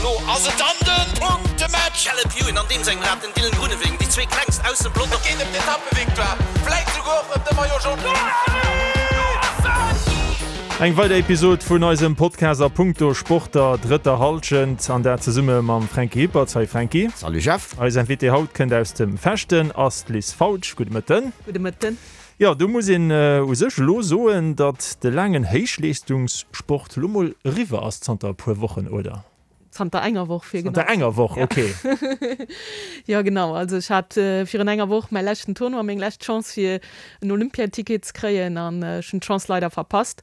Lo ass et dann de Punktematch! Caleb Ewan an deem sengem Rad, den Dylan Groenewegen, déi zwee klengst aus dem Pelotong. Et geet ëm d'Etappevictoire, vläit souguer och ëm de Maillot Jaune. Eng weider Episod vun eisem Podcast a punkto Sport der drëtter Hallschent an dat zesumme mam Franky Hippert. Salut Franky. Salut Jeff. Eis Invitée haut kënnt aus dem Fechten, ass d'Liz Fautsch. Gudde Mëtten. Gudde Mëtten. Jo, do muss een u sech elo soen, datt de laangen Héichleeschtungssport elo mol eriwwer ass zanter e puer Wochen, oder? Zanter enger Woch, fir genau ze sinn. Zanter enger Woch, ok. Jo, genau. Also ech hat virun enger Woch mäi leschten Tournoi, meng lescht Chance fir en Olympiaticket ze kréien an ech hunn d'Chance leider verpasst.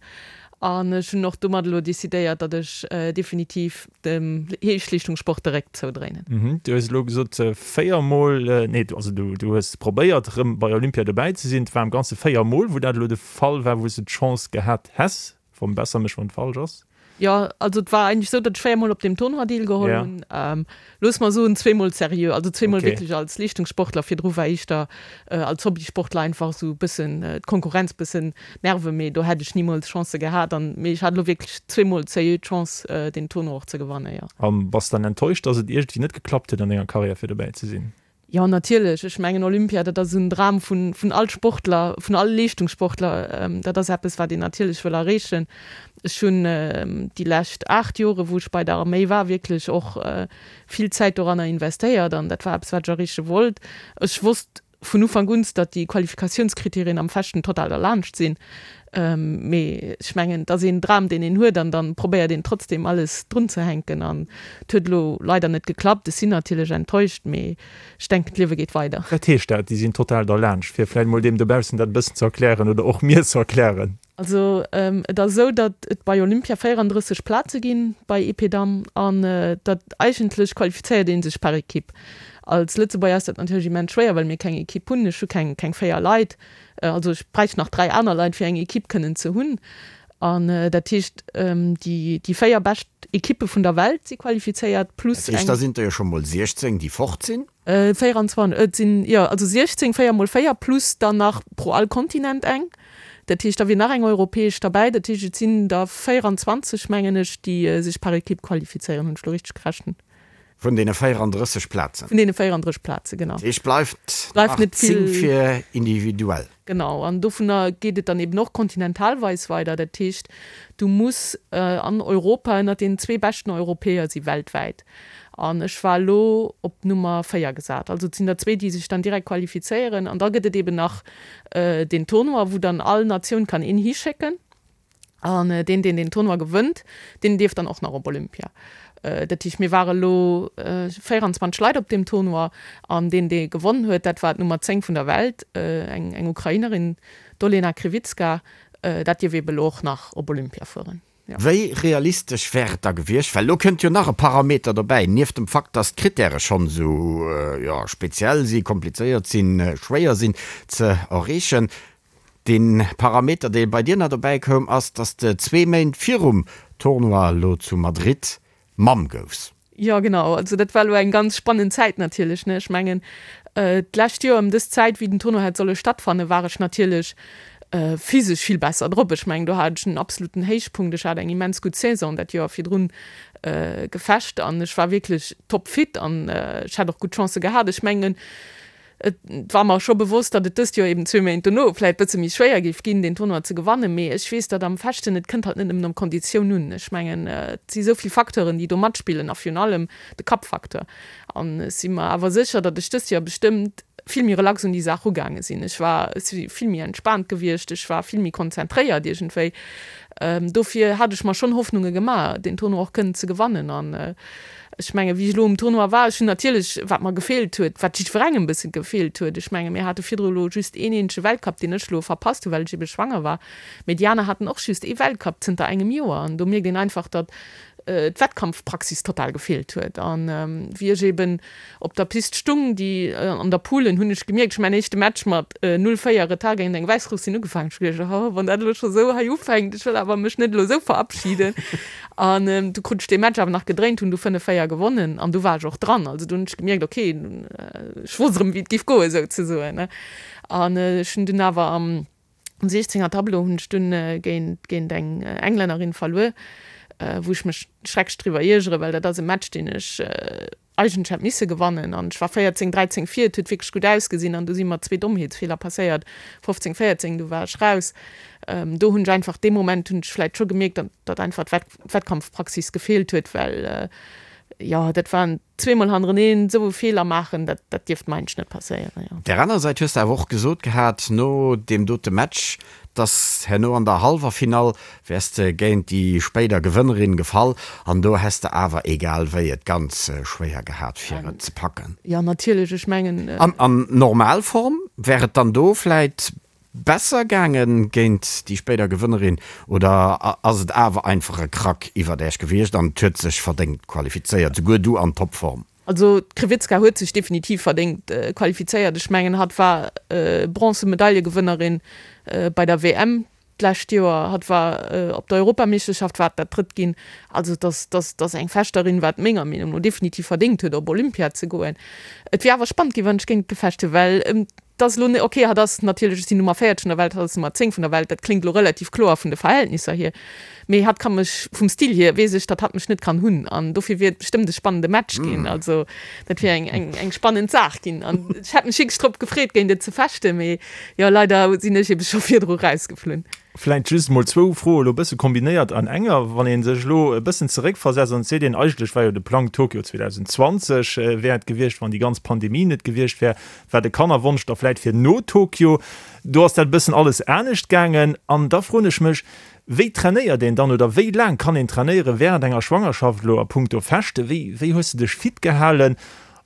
An ech hunn och domat elo decidéiert, datt ech definitiv dem Héichleeschtungssport de Réck zoudréinen. Du hues elo gesot 4 Mol, nee, also du hues probéiert erëm bei Olympia dobäi ze sinn. Et war am Ganze 4 Mol, wou dat elo de Fall war, wou s de d'Chance gehat häss. Verbesser mech, wann et falsch ass. Jo, also et war eigentlech esou, datt ech 4 Mol op deem Tournoi deelgeholl hunn. Looss mer soen, zweemol seriö, also zweemol wierklech als Leeschtungssportler. Virdru war éischter als Hobbysportler einfach esou e bëssen d'Konkurrenz bëssen nerven, mee do hätt ech nimools Chancë gehat. An mee ech hat elo wierklech zweemol seriö d'Chance, deen Tournoi och ze gewannen, jo. A bass dann enttäuscht, datt et iergendwéi net geklappt huet an denger Karriär fir dobäi ze sinn? Jo, natierlech. Ech mengen, Olympia, dat ass en Dram vun, vun all Sportler, vun all Leeschtungssportler. Dat ass eppes, wat een natierlech wëll erreechen. Ech hunn déi lescht 8 Jore, wou ech bei der Arméi war, wierklech och vill Zäit doranner investéiert an dat war eppes, wat ech erreeche wollt. Ech wosst vun Ufank un, datt déi Qualifikatiounskriterien am Fechten total derlaanscht sinn. Mee ech mengen, et ass een Dram, deen een huet an dann probéiert een trotzdem alles drunzehänken an et huet elo leider net geklappt. Ech sinn natierlech enttäuscht, mee ech denken, d'Liewe geet weider. Wat heescht dat, déi sinn total derlaanscht? Fir vläicht mol deem dobaussen dat e bëssen ze erklären oder och mir ze erklären. Also et ass esou, datt et bei Olympia 34 Plaze ginn bei Epée Damm an datt eigentlech qualifizéiert ee sech par Equipe. Als Lëtzebuerger ass dat natierlech immens schwéier, well mir keng Equipe hunn. Ech hu keng keng 4 Leit. Also ech bräicht nach 3 aner Leit fir eng Equipe kënnen ze hunn. An dat heescht déi déi 4 bescht Equippe vun der Welt si qualifizéiert plus eng. Dat heescht da sinn der jo scho mol 16 déi fort sinn? 24, et sinn, jo, also 16, 4 mol 4 plus dann nach pro all Kontinent eng. Dat heescht, da wier nach eng europäesch derbäi. Dat heescht, et sinn der 24, mengen ech, déi sech par Equipe qualifizéieren. Hunn ech elo richteg gerechent? Vun deene 34 Plazen. Vun deene 34 Plazen, genau. Dat heescht, bleift nach 10 fir individuell. Genau, an dovunner geet et dann eben och kontinentalweis weider. Dat heescht, du muss an Europa ënnert den zwee beschten Europäer si weltwäit. An ech war elo op Nummer 4 gesat. Also et sinn der zwee, déi sech dann direkt qualifizéieren. An da gëtt et eben nach deen Tournoi, wou dann all Natioun kann een hischécken. An deen, deen deen Tournoi gewënnt, deen dierf dann och nach op Olympia. Dat heescht, mir ware lo 24 Leit op deem Tournoi an deen, dee gewonnen huet, dat war d'Nummer 10 vun der Welt, eng eng Ukrainerin, d'Olena Kryvytska. Dat dierf eebe lo och nach op Olympia fueren. Jo. Wéi realistesch wär et da gewiescht, well elo kënnt jo nach e Parameter dobäi, nieft dem Fakt, dass d'Krittäre schonn esou, jo, speziell si, komplizéiert sinn, schwéier sinn ze erreechen, Dee Parameter, dee bei dir nach dobäi koum, ass, dass de zwee Méint virum Tournoi elo zu Madrid Mamm goufs. Jo, genau. Also dat war elo eng ganz spannend Zäit natierlech, ne. Ech mengen, d'lescht Joer ëm dës Zäit, wéi den Tournoi hätt solle stattfannen, war ech natierlech physesch vill besser drop. Ech mengen, do hat ech en absoluten Héichpunkt. Ech hat eng immens gutt Saison dat Joer virdrun gefecht an ech war wierklech topfit an ech hätt och gutt Chancë gehat. Ech mengen, Et war mer scho bewosst, datt et dëst Joer eben zwee Méint dono vläit bësse méi schwéier géif ginn, deen Tournoi ze gewannen. Mee ech weess, datt am Fechten, et kënnt halt net nëmmen op d'Konditioun un. Ech mengen, et si sou vill Facteuren, déi do matspillen a virun allem de Kappfacteur. An ech si mer awer sécher, datt ech dëst Joer bestëmmt vill méi relax un déi Saach ugaange sinn. Ech war, ech si vill méi entspaant gewiescht, ech war vill méi konzentréiert iergendwéi. Dofir hat ech mer schonn Hoffnunge gemaach, deen Tournoi och kënnen ze gewannen. An Ech mengen, wéi ech elo um Tournoi war, ech hunn natierlech, wat mer gefeelt huet, wat jiddwerengem e bësse gefeelt huet, ech menge mir hate virdru elo just een eenzege Weltcup, deen ech elo verpasst hunn, well ech ebe schwanger war, mee déi aner haten och just ee Weltcup zënter engem Joer. An do mierkt een einfach, datt d'Wettkampfpraxis total gefeelt huet. An wéi ech eben op der Pist stung, déi an der Poule, hunn ech gemierkt, ech hu mäin éischte Match mat 0, 4 Retard géint eng Wäissrussin ugefaangen. Ech hu geduecht, oh, wann dat elo scho sou hei ufänkt, ech wëll awer mech net elo sou verabschieden. An du krut ech dee Match awer nach gedréint, hunn du 5, 4 gewonnen an du war ech och dran. Also du hunn ech gemierkt, okay, ech wosst erëm, wéi et géif goen, souzesoen. An ech hunn dunn awer am 16er Tableau hunn ech dunn géint géint eng Englännerin verluer. wou ech mech schrecklech driwwer iergeren, well dat ass e Match, deen ech eigentlech hätt misse gewannen. An ech war 14, 13 vir, et huet wierklech gutt ausgesinn an du si mer zwee Dommheetsfeeler passéiert, 15, 14, du war ech raus. Do hunn ech einfach, dee Moment hunn ech vläicht scho gemierkt, datt einfach d'Wettkampfpraxis gefeelt huet, well jo, dat waren zweemol hannereneen esou e Feeler maachen, dat dat dierft mer eigentlech net passéieren, jo. Op där aner Säit hues de awer och gesot gehat no deem dote Match, dass herno an der hallwer Finall wäers de géint déi spéider Gewënnerin gefall an do häss de awer egal wéi et ganz schwéier gehat fir et ze packen. Jo natierlech, ech mengen. An an Normalform wär et dann do vläit Besser gaangen géint déi spéider Gewënnerin oder ass et awer einfach e Krack iwwert Äech gewiescht an et huet sech verdéngt qualifizéiert, souguer du an Topform? Also d'Krivitska huet sech definitiv verdéngt qualifizéiert. Ech mengen hatt war Bronzemedaillegewënnerin bei der WM d'lescht Joer, hatt war op der Europameeschterschaft war dat drëtt ginn. Also dass dass dass eng Fechterin wat menger Meenung no definitiv verdéngt huet op Olympia ze goen. Et wier awer spannend ginn wann ech géint gefecht hunn, well 't ass elo net, ok, hatt ass natierlech, ech sinn Nummer 40 vun der Welt, hatt ass Nummer 10 vun der Welt, dat kléngt elo relativ kloer vun de Verhältnisser hier, mee hatt ka mech vum Stil hier, weess ech, datt hatt mech net kann hunn an dofir wier et bestëmmt e spannende Match ginn. Also dat wier eng, eng, eng spannend Saach ginn an ech hätt mech wierklech drop gefreet, géint et ze fechten, mee jo, leider sinn ech ebe scho virdru rausgeflunn. Vläicht just emol zwou Froe elo e bësse kombinéiert an enger. Wann ee sech elo e bëssen zeréckversetzt an et seet een, eigentlech war jo de Plang Tokio 2020 wär et gewiescht, wann déi ganz Pandemie net gewiescht wär, war de Kannerwonsch da vläit fir no Tokio. Do ass dat e bëssen alles anescht gaangen. An da froen ech mech, Wéi trainéiert een dann oder wéi laang kann een trainéiere während enger Schwangerschaft elo a punkto Fechte? Wéi, wéi hues de dech fit gehalen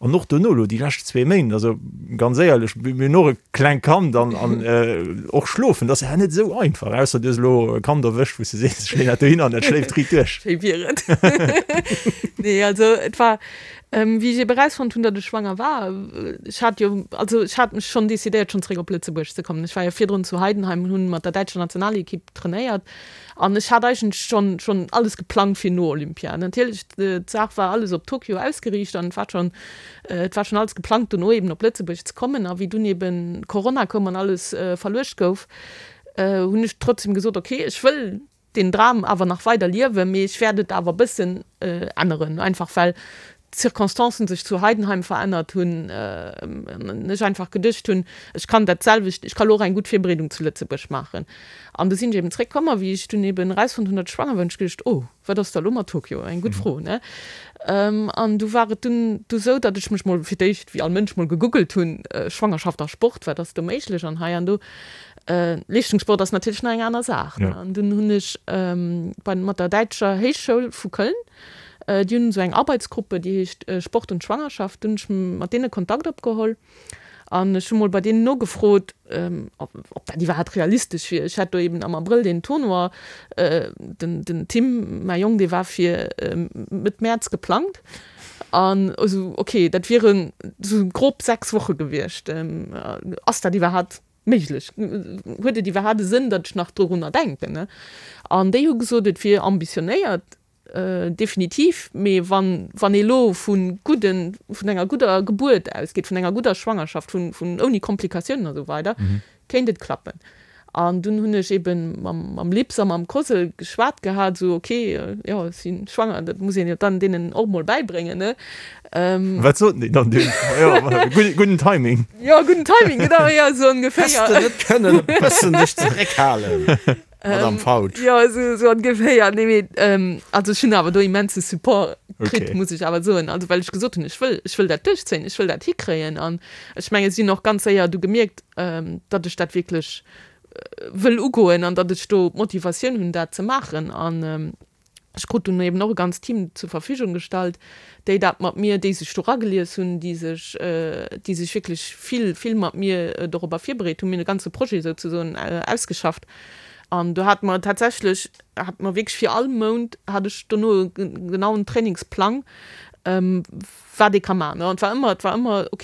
an och dono elo déi lescht zwee Méint? Also ganz éierlech, mir hunn och e klengt Kand an, an och schlofen, dat ass ja net esou einfach, ausser du hues elo e Kand erwëscht, wou s de sees, ech leeën dat dohin an dat schléift riit duerch. Schéi wier et. Nee, also et war, Wéi ech ebe erausfonnt hunn, datt ech schwanger war, ech hat jo, also ech hat mech schonn decidéiert, schonn zeréck op Lëtzebuerg ze kommen. Ech war jo virdrun zu Heidenheim an hunn mat der däitscher Nationalekipp trainéiert an ech hat eigentlech schonn, schonn alles geplangt fir no Olympia. Natierlech, d'Saach war alles op Tokio ausgeriicht an et war schonn, et war schonn alles geplangt, dono eben op Lëtzebuerg ze kommen. A wéi dunn eben Corona koum an alles verluecht gouf, hunn ech trotzdem gesot, okay, ech wëll deen Dram awer nach weider liewen, mee ech wäert et awer e bëssen änneren, einfach well d'Circonstancen sech zu Heidenheim verännert hunn an ech einfach geduecht hunn, ech kann dat selwecht, ech ka lo och eng gutt Virbereedung zu Lëtzebuerg maachen. An du sinn ech eben zréckkomm a wéi ech dunn eben erausfonnt hunn, datt ech schwanger war, hunn ech geduecht, oh, wat ass da lo mat Tokio? Eng gutt Fro, ne? An du war et dunn du sou, datt ech mech mol fir d'éischt, wéi all Mënsch, mol gegoogelt hunn, Schwangerschaft a Sport, wat ass do méiglech an hei an do. Leeschtungssport ass natierlech nach eng aner Saach. An dunn hunn ech bei mat der däitscher Héichschoul vu Köln, déi hunn esou eng Arbeitsgruppe, déi heescht Sport und Schwangerschaft, dunn hunn ech mat deene Kontakt opgeholl an ech hu mol bei deenen nogefrot, ob dat iwwerhaapt realistesch wier. Ech hat do eben am Abrëll deen Tournoi, den den Tim, mäi Jong, dee war fir Mëtt Mäerz geplangt an esou, okay, dat wieren esou grob 6 Woche gewiescht. Ass dat iwwerhaapt Méiglech? Huet et iwwerhaapt e Sënn, datt ech nach dorunner denken? An déi hu gesot, et wier ambitionéiert, definitiv, mee wann, wann ee lo vu gudden, vun enger gudder Gebuert ausgeet, vun enger gudder Schwangerschaft, vun, vun ouni Komplikatiounen a sou weider, kéint et klappen. An dunn hunn ech ebe mam, mam Lips a mam Cosel geschwat gehat, esou, ok, jo, ech si schwanger, dat muss een jo dann deenen och mol bäibréngen, ne? Wat soten déi dann dunn? Jo, gudden Timing. Jo, gudden Timing, genau, jo, esou ongeféier. Häss de net kënnen e bëssen dech zeréckhalen, Madame Fautsch? Jo, esou, esou ongeféier. Nee, mee also ech hunn awer do immense Support kritt, muss ech awer soen. Also well ech gesot hunn, ech wëll, ech wëll dat duerchzéien, ech wëll dat hikréien. An ech mengen, si hunn och ganz séier du gemierkt, datt ech dat wierklech wëll ugoen an datt ech do d'Motivatioun hunn, dat ze maachen. An Ech krut dunn eben och e ganzt Team zur Verfügung gestallt, déi dat mat mir, déi sech do ragelies hunn, déi sech, déi sech wierklech vill, vill mat mir dorobber virbereet hunn. Mir hunn e ganze Projet souzesoen ausgeschafft an do hate mer tatsächlech, hate mer wierklech fir all Mount hat ech dono e genauen Trainingsplang, wat ee ka maachen. An et war ëmmer, et war ëmmer, ok,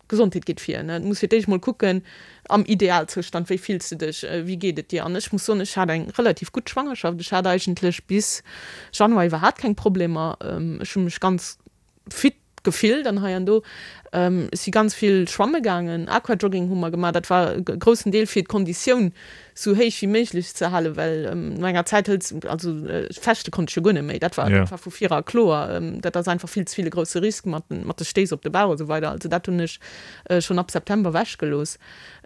d'Gesondheet geet vir, ne, du muss fir d'éischt mol kucken, am Idealzoustand, wéi fills de dech, wéi geet et dir? An ech muss soen, ech hat eng relativ gutt Schwangerschaft, ech hat eigentlech bis Januar iwwerhaapt keng Problemer, ech hu mech ganz fit gefillt an hei an do. Ech si ganz vill schwamme gaangen, Aquajogging hu mer gemaach, dat war e groussen Deel fir d'Konditioun. Sou héich wéi méiglech ze halen, well no enger Zäit hëls, also fechte konnt ech jo guer net méi, dat war, dat war vu vira kloer, dat ass einfach vill ze vill e grousse Risk mat den, mat de Stéiss op de Bauch a sou weider. Also dat hunn ech schonn ab September ewech gelooss.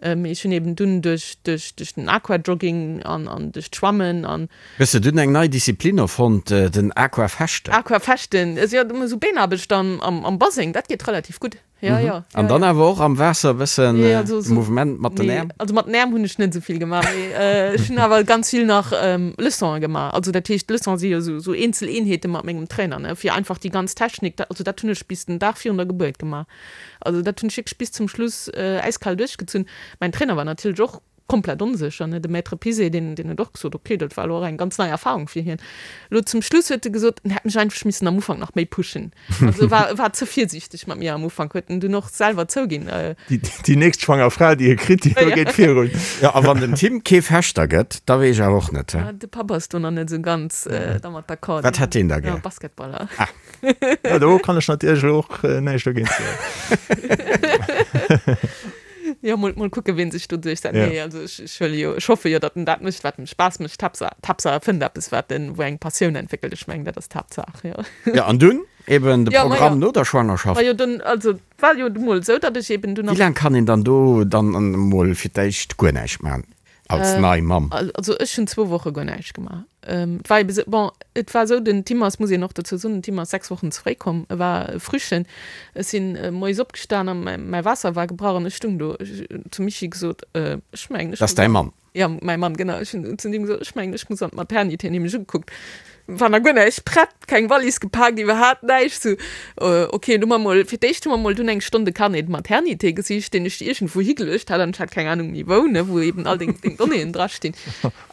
Mee ech hunn eben dunn duerch, duerch, duerch den Aquajogging an, an duerch d'Schwammen an. Hues de dunn eng nei Disziplin erfonnt, den Aquafechten? Aquafechten, also jo, sou Beenaarbecht am, am Baseng, dat geet relativ gutt. Ja, ja, ja. An dann awer och am Waasser e bëssen Mouvement mat den Äerm? Also mat den Äerm hunn ech net esou vill gemaach, mee ech hunn awer ganz vill nach Leçonen gemaach. Also dat heescht, Leçonen si jo esou eenzel Eenheete mat mengem Trainer, ne, fir einfach déi ganz Technik, also dat hunn ech bis den Dag virun der Gebuert gemaach. Also dat hunn ech wierklech bis zum Schluss äiskal duerchgezunn. Mäin Trainer war natierlech och komplett onsécher, ne, de Maître Pizet, deen, deen huet och gesot, ok, dat war elo och eng ganz nei Erfahrung fir hien. Elo zum Schluss huet e gesot, en hätt mech einfach missen am Ufank nach méi pushen. Also e war, e war ze virsiichteg mat mir am Ufank, huet en dunn och selwer zouginn. Déi, déi nächst schwanger Fra, déi e kritt, déi do geet virun. Jo, a wann den Tim kee Fechter gëtt, da weess ech awer och net, he? De Papp ass do nach net esou ganz dermat d'accord. Wat hätt deen da gär? Basketballer. Ah. Ja, do kann ech natierlech elo och näischt dogéint soen. Jo, mol, mol kucken, wien sech do duerchsetzt. Ja. Nee, also ech, ech huele jo, ech hoffe jo, datt en dat mécht, wat em Spaass mécht. Haaptsaach, d'Haaptsaach e fënnt eppes, wat en, wou eng Passioun entwéckelt. Ech mengen, dat ass d'Haaptsaach, jo. Ja, an dunn eben de Ja, ma Programm jo. no der Schwangerschaft. Ma jo, dunn, also et war jo du mol esou, datt ech eben dunn Wéi laang kann een dann do dann emol fir d'éischt guer näischt maachen als nei Mamm? Also ech hunn zwou Woche guer näischt gemaach. Et war ebe sou, bon, et war esou, den Tim ass, muss een och dozou soen, den Tim ass 6 Wochen ze fréi komm, e war e Frühchen. Ech sinn moies opgestan a mäi Waasser war gebrach an ech stung do. Ech hunn zum Michi gesot, ech mengen, ech Dat ass däi Mann? Jo, mäi Mann, genau. Ech hunn zu deem gesot, ech mengen, ech muss an d'Maternité. En huet mech ugekuckt, war nach guer näischt prett, keng Wallis gepaakt, iwwerhaapt näischt. Sou, ok, du hu mer mol, fir d'éischt hu mer mol dunn eng Stonn de Carnet de maternité gesicht, deen ech iergendwou higeluecht hat an ech hat keng Anung méi wou, ne, wou eben all deng Donnéeën drastinn.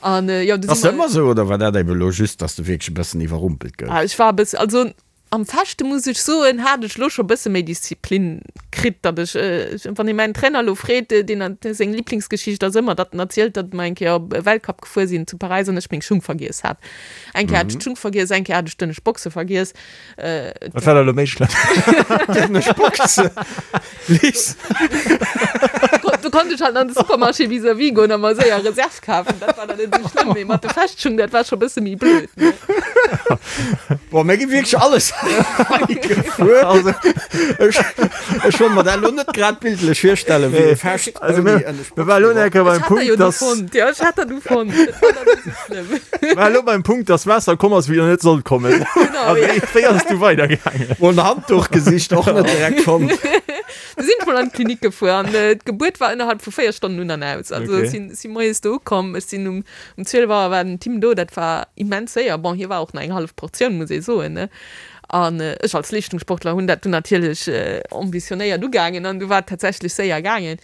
An jo, du Ass dat ëmmer esou oder war dat ebe lo just, dass de wierklech e bëssen iwwerrumpelt goufs? Ah, ech war e bëssen, also am Fechte muss ech soen, hat ech lo scho bësse méi Disziplin kritt, datt ech, wann ee mäin Trainer lo freet, deen hat, seng Liblingsgeschicht ass ëmmer, datt en erzielt, datt mer eng Kéier op e Weltcup gefuer sinn zu Paräis an ech meng Schung vergiess hat. Eng Kéier hat ech d'Schung vergiess, eng Kéier hat ech d'ënnescht Boxe vergiess. Wat war da lo méi schlëmm? D'ënnescht Boxe, Liz. Du konnt ech halt an de Supermarché vis-à-vis goen a mer séier Reserve kafen, dat war dann net esou schlëmm, mee mat de Fechtschung, dat war scho bësse méi blöd, ne? Boah, mir gi wierklech alles hei gefuer. Also, ech, ech wollt mer dat elo net grad bildlech virstellen, wéi ee Fecht Also, ouni mir, ënnescht mir war elo Boxe eng Kéier Ech beim hat der jo Punkt, du dass. fonnt, jo, ech hat der du fonnt, dat war dann net esou schlëmm. War elo beim Punkt, dass Waasser komm ass, wéi der net sollt kommen. Genau, A ja. wéi, wéi ass et du weidergaangen? Mol en Handduch gesicht, och net direkt fonnt. Du sinn ech mol an d'Klinik gefuer an d'Gebuert war ënnerhalb vu 4 Stonnen un an aus. Also Okay. ech sinn, si moies do ukomm, ech sinn um, um 12 Auer war den Tim do, dat war immens séier. Bon, hie war och nach eng hallef Portioun, muss ee soen, ne. An ech als Leeschtungssportler hunn dat dunn natierlech ambitionéiert ugaangen an du war et tatsächlech séier gaangen.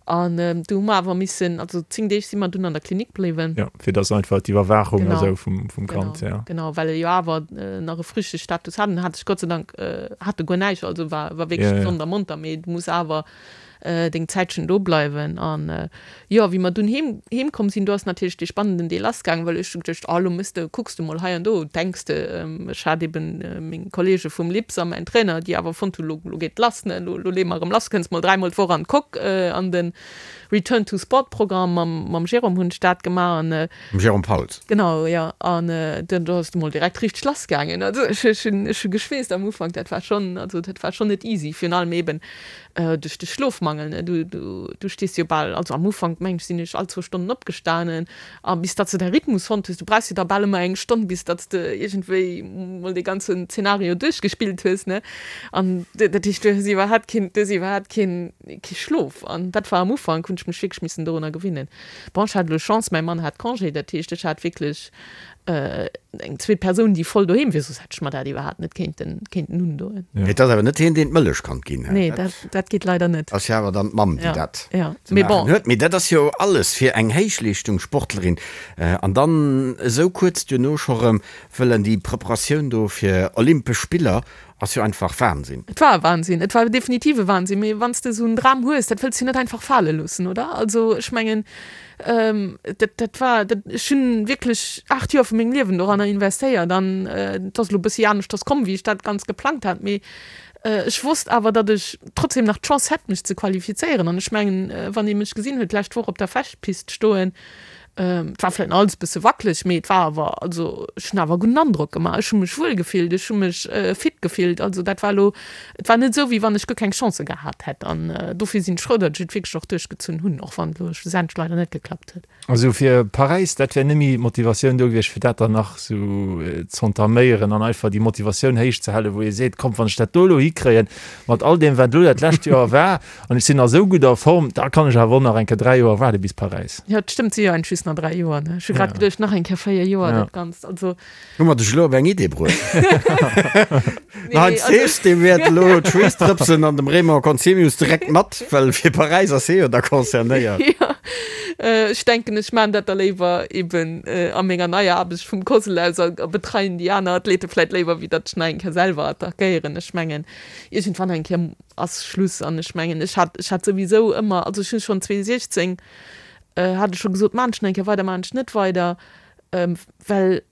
An du hu mer awer missen, also 10 Deeg si mer dunn an der Klinik bliwwen. Jo, fir dass einfach d'Iwwerwaachung a Genau, sou vum, vum Kand, genau, ja. genau, well e jo awer nach e Frühchestatus hat. En hat sech Gott sei Dank, hat e guer näischt, also war, war wierklech Ja, ja. gesond a monter, mee du muss awer deng Zäitchen do bleiwen. An jo, wéi mer dunn heem, heem komm sinn, do ass natierlech dee spannenden Deel lassgaangen, well ech hu geduecht, oh lo mëss de, kucks de mol hei an do, denks de, ech hat eben meng Kollege vum LIPS a mäin Trainer, déi awer fonnt hunn, lo, lo geet lass, ne, lo, lo leeë mer erëm lass, kënns mol dräimol d'Woch an d'Coque, an de Return to Sport Programm mam, mam Jérôme hunn ech dat gemaach an. Mam Jérôme Pauls. Genau, jo, an do, do ass et mol direkt richteg lass gaangen. Also ech, ech hunn, ech hu geschweesst am Ufank, dat war schonn, also dat war schonn net easy, virun allem eben duerch de Schlofmangel, ne, du, du, du stees jo bal, also am Ufank meng ech sinn ech all zwou Stonnen opgestanen, A bis datt s de däi Rhythmus fonnt hues, du brauchs jo da bal ëmmer eng Stonn, bis datt s de iergendwéi mol dee ganzen Zeenario duerchgespillt hues, ne? An dat heescht, du hues iwwerhaapt keen, du hues iwwerhaapt keen, kee Schlof. An dat war am Ufank, hunn ech mech wierklech missen dorunner gewinnen. Bon, ech hat elo Chance, mäi Mann hat Congé, dat heescht, ech hat wierklech eng zweet Persoun, déi voll doheem wier, soss hätt ech mer dat iwwerhaapt net kéinten, kéinten undoen. Mee et ass awer net hien, deen d'Mëllech kann ginn, he? Nee, dat, dat geet leider net. Ass jo awer dann d'Mamm, déi dat ja, ze mee maachen bon. huet. Mee dat ass jo alles fir eng Héichleeschtungssportlerin. An dann esou kuerz duerno scho rëm wëllen déi Preparatioun do fir Olympesch Spiller ass jo einfach Wahnsinn. Et war e Wahnsinn, et war definitiv e Wahnsinn. Mee wann s de esou en Dram hues, dat wëlls de jo net einfach fale loossen, oder? Also ech mengen, dat, dat war, dat, ech hunn wierklech 8 Joer vu mengem Liewen doranner investéiert an et ass elo e bëssi aneschters komm, wéi ech dat ganz geplangt hat. Mee ech wosst awer, datt ech trotzdem nach d'Chance hätt, mech ze qualifizéieren. An ech mengen, wann ee mech gesinn huet d'lescht Woch op der Fechtpist stoen. Et war vläicht nach alles e bësse wackeleg, mee et war awer, also ech hunn awer e gudden Androck gemaach. Ech hu mech wuel gefillt, ech hu mech fit gefillt. Also dat war elo, et war net esou, wéi wann ech guer keng Chancë gehat hätt. An dofir sinn ech frou, datt ech et wierklech och duerchgezunn hunn, och wann et elo schlussendlech leider net geklappt huet. Also fir Paräis, dat wär net méi d'Motivatioun do gewiescht, fir dat dann nach esou z'entaméieren an einfach déi Motivatioun héich ze halen, wou ee seet, komm, wann ech dat do elo hikréien, mat all deem, wat elo dat lescht Joer war, An ech sinn a sou gudder Form, da kann ech awer och nach eng Kéier 3 Joer waarde bis Paräis. Jo, et stëmmt, si jo eigentlech just nach 3 Joer, ne? Ech hu grad geduecht, nach eng Kéier 4 Joer, dat Ganzt, also. Hu mer dech elo op eng Idee bruecht? Den Heinz Thews, dee wäert elo d'Schweessdrëpsen an dem Raymond Conzemius direkt mat, well fir Paräis ass hie jo da concernéiert. Jo, ech denken, ech maachen dat da léiwer eben a menger neier Aarbecht vum COSL aus a betreien déi aner Athlete vläit léiwer, wéi datt ech nach eng Kéier selwer attackéieren. Ech mengen, iergendwann eng Kéier ass Schluss an ech mengen ech hat ech hat souwisou ëmmer, also ech hunn schonn 2016 hat ech scho gesot, maan ech nach eng Kéier weider, maan ech net weider, well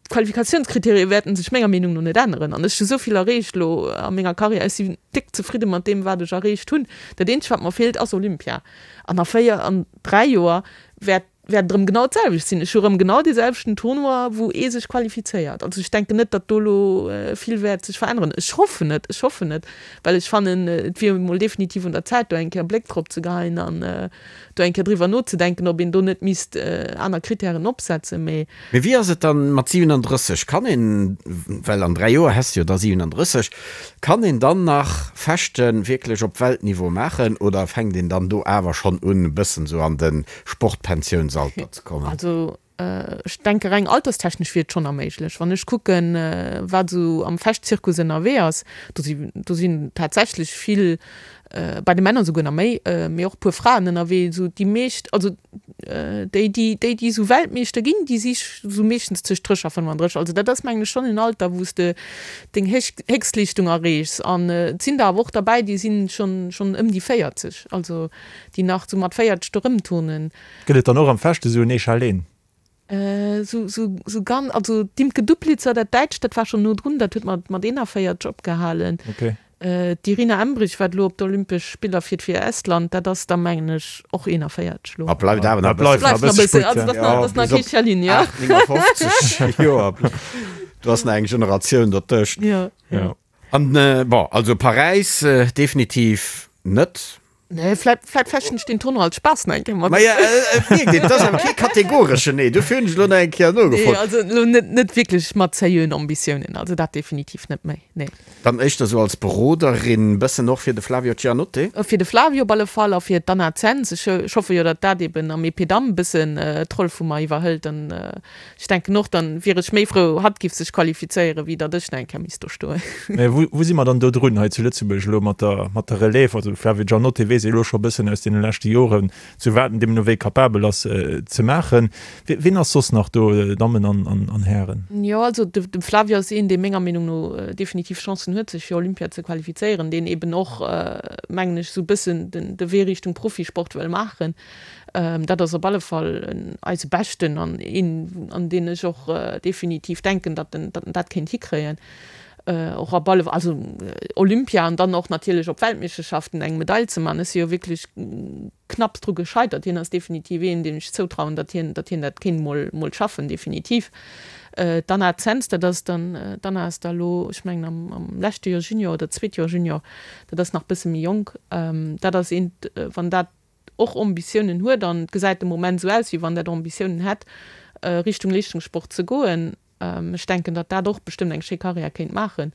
d'Qualifikatiounskriterien wäerten sech menger Meenung no net änneren an ech hu sou vill erreecht elo a menger Karriär, ech sinn déck zefridde mat deem wat ech erreecht hunn. Dat eenzegt wat mer feelt ass Olympia an a 4 an 3 Joer wäert wäert et erëm genau d'selwecht sinn. Ech hu erëm genau dee selwechten Tournoi, wou ee sech qualifizéiert. Also ech denken net, datt do elo vill wäert sech veränneren. Ech hoffen et, ech hoffen et, well ech fannen, et wier emol definitiv un der Zäit, do eng Kéier e Bléck drop ze geheien an do eng Kéier driwwer nozedenken, ob een do net misst aner Kritären opsetzen. Mee. Mee wéi ass et dann mat 37? Kann een, well an 3 Joer häss de jo da 37, kann een dann nach Fechten wierklech op Weltniveau maachen oder fänkt een dann do awer schonn un e bëssen esou an de Sportpensiounsalter ze kommen? Also ech denke reng alterstechnesch wier et schonn erméiglech. Wann ech kucken, wat esou am Fechtzirkus ënnerwee ass, do si do sinn tatsächlech vill, bei de Männer esouguer nach méi, mee och e puer Fraen ënnerwee, esou déi meescht, also déi déi déi déi esou Weltmeeschter ginn, déi si esou meeschtens tëscht 30 a 35. Also dat ass mengen ech schonn en Alter, wou s de deng Héchstleeschtung erreechs. An et sinn der awer och derbäi, déi sinn schonn schonn ëm déi 40. Also déi nach sou mat 40 do rëmturnen. Gëtt et dann och am Fechte sou en Echalén? Sou, sou, sou ganz, also d'Imke Duplitzer, dat Däitscht, dat war schonn no drun, dat huet mat, mat 41 opgehalen. Okay. D'Irina Embrich, wat elo op d'Olympesch Spiller fiert fir Estland, dat ass da mengen ech och 41 elo. A bleift awer nach e bëssen. Bleift nach e bëssen, also dat ass nach kee Echalin, jo. 59 Joer, do ass nach eng Generatioun dertëscht. Jo, jo. An, bon, also Paräis definitiv net. Nee, vläit, vläit fechten ech den Tournoi als Spaass nach eng Kéier mat. Maja, et mierkt een, et ass awer kee kategoreschen Nee, dofir hunn ech elo nach eng Kéier nogefrot. Nee, also elo net, net wierklech mat seriöen Ambitiounen, also dat definitiv net méi, nee. Dann éischter sou als Beroderin, bëssen och fir de Flavio Giannotte? Fir de Flavio op alle Fall a fir d'Anna Zenz. Ech, ech hoffe jo, datt dat eben am Épée Dame bëssen d'Roll vu mer iwwerhëlt an Ech denken och, dann wier ech méi frou, hatt giff sech qualifizéieren, wéi datt ech nach eng Kéier misst do stoen. Mä wou, wou si mer dann do drun hei zu Lëtzebuerg elo mat der, mat der Relève? Also de Flavio Giannotte weess ee elo scho e bëssen aus deene leschte Joren, zu wat en deemno wéi capabel ass ze maachen. Wien ass soss nach do, Dammen an, an, an Hären? Jo, also de, de Flavio ass een, dee menger Meenung no definitiv Chancen huet, sech fir Olympia ze qualifizéieren, deen eben och, mengen ech, esou e bëssen den, de Wee Richtung Profisport wëll maachen. Dat ass op alle Fall eise Beschten an een, an deen ech och definitiv denken, datt en dat kéint hikréien. Och op alle, also Olympia an dann och natierlech op Weltmeeschterschaften eng Medail ze man. Ech si jo wierklech knapps dru gescheitert. Hien ass definitiv een, deem ech zoutrauen, datt hien, datt hien dat kéint mol, mol schaffen, definitiv. D'Anna Zens, dat ass dann, d'Anna ass da elo, ech mengen am, am leschte Joer Junior oder zweet Joer Junior, dat ass nach bësse méi jonk. Dat ass eent, wann dat och Ambitiounen huet, an et gesäit de Moment esou aus, wéi wann dat Ambitiounen hätt, Richtung Leeschtungssport ze goen. Ech denken, datt dat och bestëmmt eng schéi Karriär kéint maachen.